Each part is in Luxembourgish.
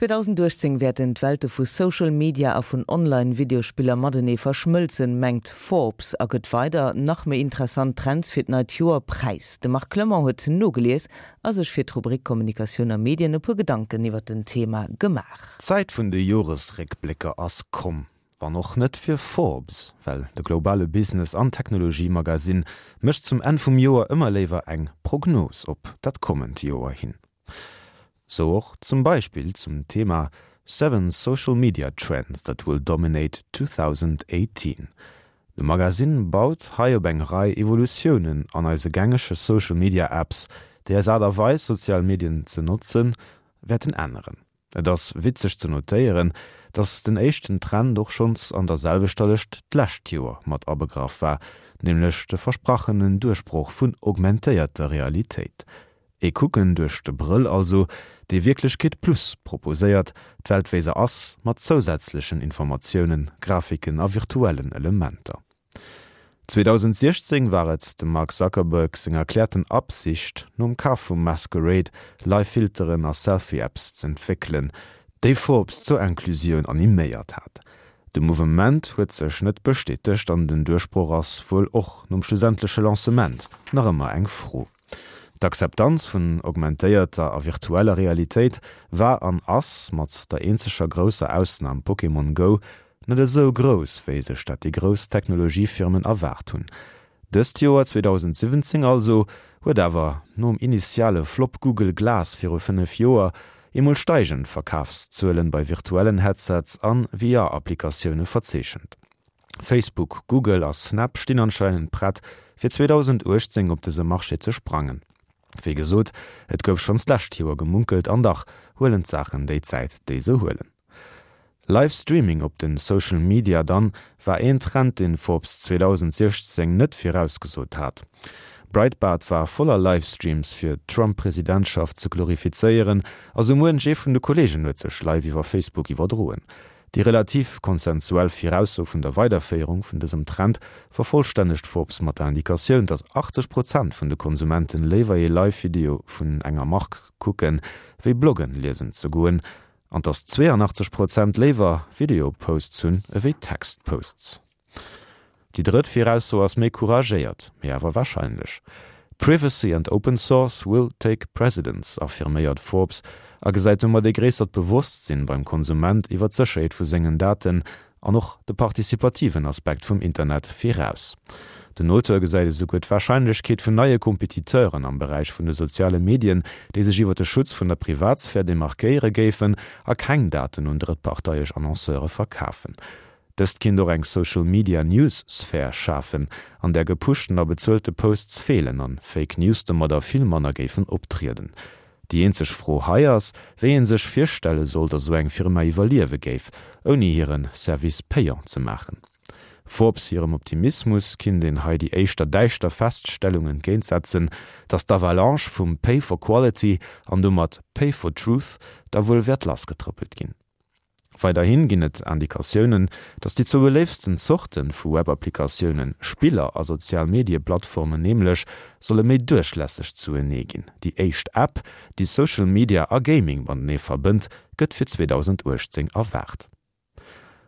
2018 wäerten d'Welte vu Social Media a vun Online-Videospiller matenee verschmëlzen, mengt Forbes a gëtt weider nach méi interessant Trends fir d'neit Joer präis. De Marc Clement huet nogelies a sech fir d'Rubrik Kommunikatioun a Medien e puer Gedanken iwwer den Thema gemaach. D'Zäit vun de Joresréckblécker ass komm. Wann och net fir Forbes, well de globale Business an Technologie-Magasinn mécht zum Enn vum Joer ëmmer léiwer eng Prognos op dat kommend Joer hin. Sou och zum Beispill zum Thema Seven Social Media Trends that will dominate 2018. De Magasinn baut hei op eng Rei Evolutiounen an eise gängege Social Media Apps, déi eis Aart a Weis sozial Medien ze notzen, wäerten änneren. Et ass witzeg ze notéieren, dass den éischten Trend och schonns an der selwechter Lëscht d'lescht Joer mat abegraff war, nämlech de versprachenen Duerchbroch vun augmentéierter Realitéit. Ee Kucken duerch de Brëll also, dee Wierklechkeet plus proposéiert, d'Welt wéi se ass, mat zousätzlechen Informatiounen, Grafiken a virtuellen Elementer. 2016 war et dem Mark Zuckerberg seng erkläerten Absicht, nom Kaf vu Masquerade Live-Filteren a Selfie-Apps z'entwéckelen, déi Forbes zur Inclusioun animéiert hat. De Mouvement huet sech net bestätegt an den Duerchbroch ass wuel och nom schlussendleche Lancement nach ëmmer eng Fro. D'Akzeptanz vun augmentéierter a virtueller Realitéit war an ass, mat der eenzeger grousser Ausnam Pokémon Go, net esou grouss, wéi sech dat déi grouss Technologiefirmen erwaart hunn. Dëst Joer, 2017 also, huet awer, nom initiale Flop Google Glass viru 5 Joer, eemol steigend Verkafszuelen bei virtuellen Headsets an VR-Applikatioune verzeechent. Facebook, Google a Snap stinn anscheinend prett, fir 2018 op dëse Marché ze sprangen. Wéi gesot, et gouf schonns d'lescht Joer gemunkelt an dach huelen d'Saachen déi Zäit, déi se huelen. Live Streaming op den Social Media dann war een Trend deen Forbes 2016 net virausgesot hat. Breitbart war voller Livestreams fir d'Trump Presidentschaft ze glorifizéieren a sou muench ee vun de Kollegen huet sech live iwwer Facebook iwwerdroen. Déi relativ konsensuell Virausso vun der Weiderféierung vun dësem Trend vervollstännegt Forbes mat der Indikatioun, dass 80 Prozent vun de Konsumenten léiwer ee Live-Video vun enger Mark kucken, wéi Bloggen liesen ze goen, an dass 82 Prozent léiwer Video-Posts hunn ewéi Text-Posts. Déi drëtt Virausso ass méi couragéiert, mee awer warscheinlech. Privacy and open source will take precedence, affirméiert Forbes a gesäit domat ee gréissert Bewosstsinn beim Konsument iwwer d'Sécherheet vu sengen Daten an och de participativen Aspekt vum Internet viraus. Den Auteur gesäit esouguer d'Warscheinlechkeet vun neie Kompetiteuren am Beräich vun de soziale Medien, déi sech iwwer de Schutz vun der Privatsphär demarkéiere géifen a keng Daten un drëttparteiesch Annonceure verkafen. Dëst kinnt och eng Social Media News Sphär schafen, an där gepushten a bezuelte Posts feelen an Fake News domadder vill manner géifen optrieden. Déi eenzeg Fro hei ass, wéi een sech virstelle soll, datt esou eng Firma iwwerliewe géif, ouni hiren Service payant ze maachen. Forbes hirem Optimismus kinnt een hei déi éischter däischter Feststellung entgéintsetzen, datt d'Avalanche vum Pay for Quality an domat Pay for Truth da wuel wäert lassgetrëppelt ginn. Weiderhin ginn et Indikatiounen, datt déi zwou beléiftsten Zorte vu Web-Applikatiounen, Spiller a Sozial-Medie-Plattformen nämlech, solle méi duerchlässeg zuenee ginn. Déi éischt App, déi Social Media a Gaming matenee verbënnt, gëtt fir 2018 erwaart.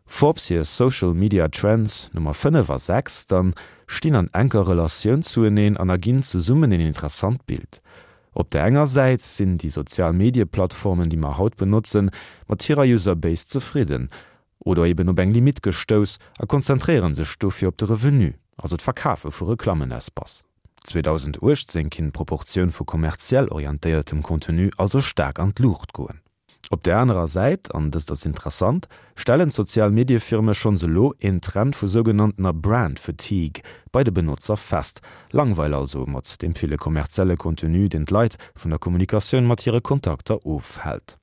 Forbes hir Social Media Trends Nummer 5 a 6 dann stinn an enker Relatioun zueneen an erginn zesummen een interessant Bild. Op der enger Säit sinn déi sozial Medieplattformen, déi mer haut benotzen, mat hirer User Base zefridden oder eben op eng Limitt gestouss a konzentréiere sech dofir op de Revenu, also d'Verkafe vu Reklammenespace. 2018 kinnt d'Proportioun vu kommerziell orientéiertem Contenu also staark an d'Luucht goen. Op där anerer Säit, an dëst ass interessant, stellen d'sozial Mediefirme schonns elo een Trend vu sougenanntener Brand Fatigue bei de Benotzer fest, Langweil also mat deem ville kommerzielle Contenu, deen d'Leit vun der Kommunikatioun mat hire Kontakter ofhält.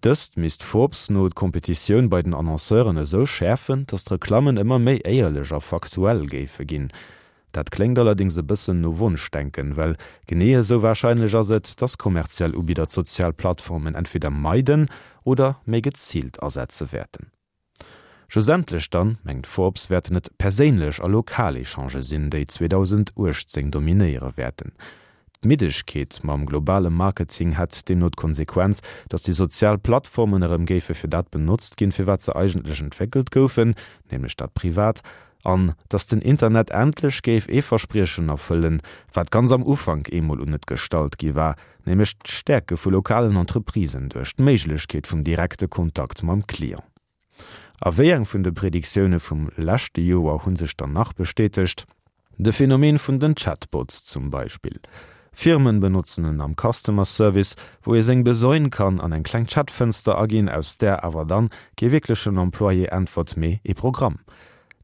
Dëst misst Forbes no d'Kompetitioun bei den Annonceuren esou schäerfen, datt d'Reklammen ëmmer méi éierlech a faktuell géife ginn. Dat kléngt allerdéngs e bëssen no Wonschdenken, well genee esou warscheinlech ass et, dass kommerziell Ubidder d'sozial Plattformen entweder meiden oder méi geziilt asetze wäerten. Schlussendlech dann, mengt Forbes, wäerten et perséinlech a lokal Echangë sinn, déi 2018 dominéiere wäerten. D'Middegkeet mam globale Marketing hätt deemno d'Konsequenz, datt déi sozial Plattformen erëm géife fir dat benotzt ginn, fir wat se eigentlech entwéckelt goufen, nämlech dat Privat, an datt den Internet endlech géif ee Verspriechen erfëllen, wat ganz am Ufank eemol un et gestallt gi war, nämlech d'Stäerke vu lokalen Entreprisen duerch d'Méiglechkeet vum direkte Kontakt mam Client. A wéi eng vun de Prediktioune vum leschte Joer hu sech dann nach bestätegt? De Phänomen vun den Chatbots zum Beispill. Firmen benotzen en am Customer Service, wou ee seng Besoine kann an eng kleng Chatfënster aginn, aus där awer dann kee wierklechen Employé äntwert, mee ee Programm.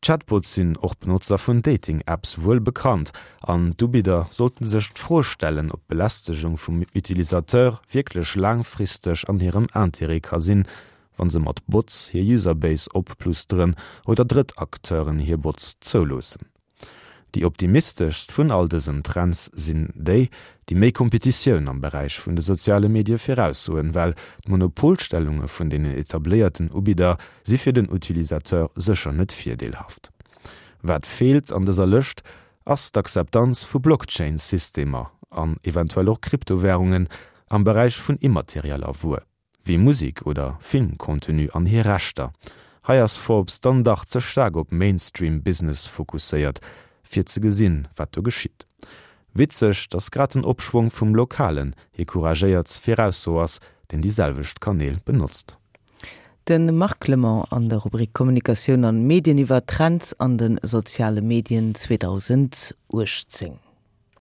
Chatbots sinn och Benotzer vun Dating-Apps wuel bekannt an d'Ubidder sollten sech d'Fro stellen, ob d'Belästegung vum Utilisateur wierklech laangfristeg an hirem Intérêt ka sinn, wa se mat Bots hir Userbase opplusteren oder drëtt Acteuren hir Bots zouloossen. Déi optimisteschst vun all dësen Trends sinn déi, déi méi Kompetitioun am Beräich vun de soziale Medie viraussoen, well d'Monopolstellunge vun deenen etabléierten Ubidder si fir den Utilisateur sécher net virdeelhaft. Wat feelt an dëser Lëscht, ass d'Akzeptanz vu Blockchain-Systemer an eventuell och Kryptowärungen am Beräich vun immaterieller Wuer. Wéi Musek oder Filmcontenu an hir Rechter. Hei ass Forbes dann dach ze staark op Mainstream Business fokusséiert, fir ze gesinn, wat do geschitt. Witzeg, dass grad den Opschwong vum Lokalen hir couragéiert Virausso ass, deen déi selwecht Kanäl benotzt. De Marc Clement an der Rubrik Kommunikatioun an Medien iwwer Trends an de soziale Medien 2018.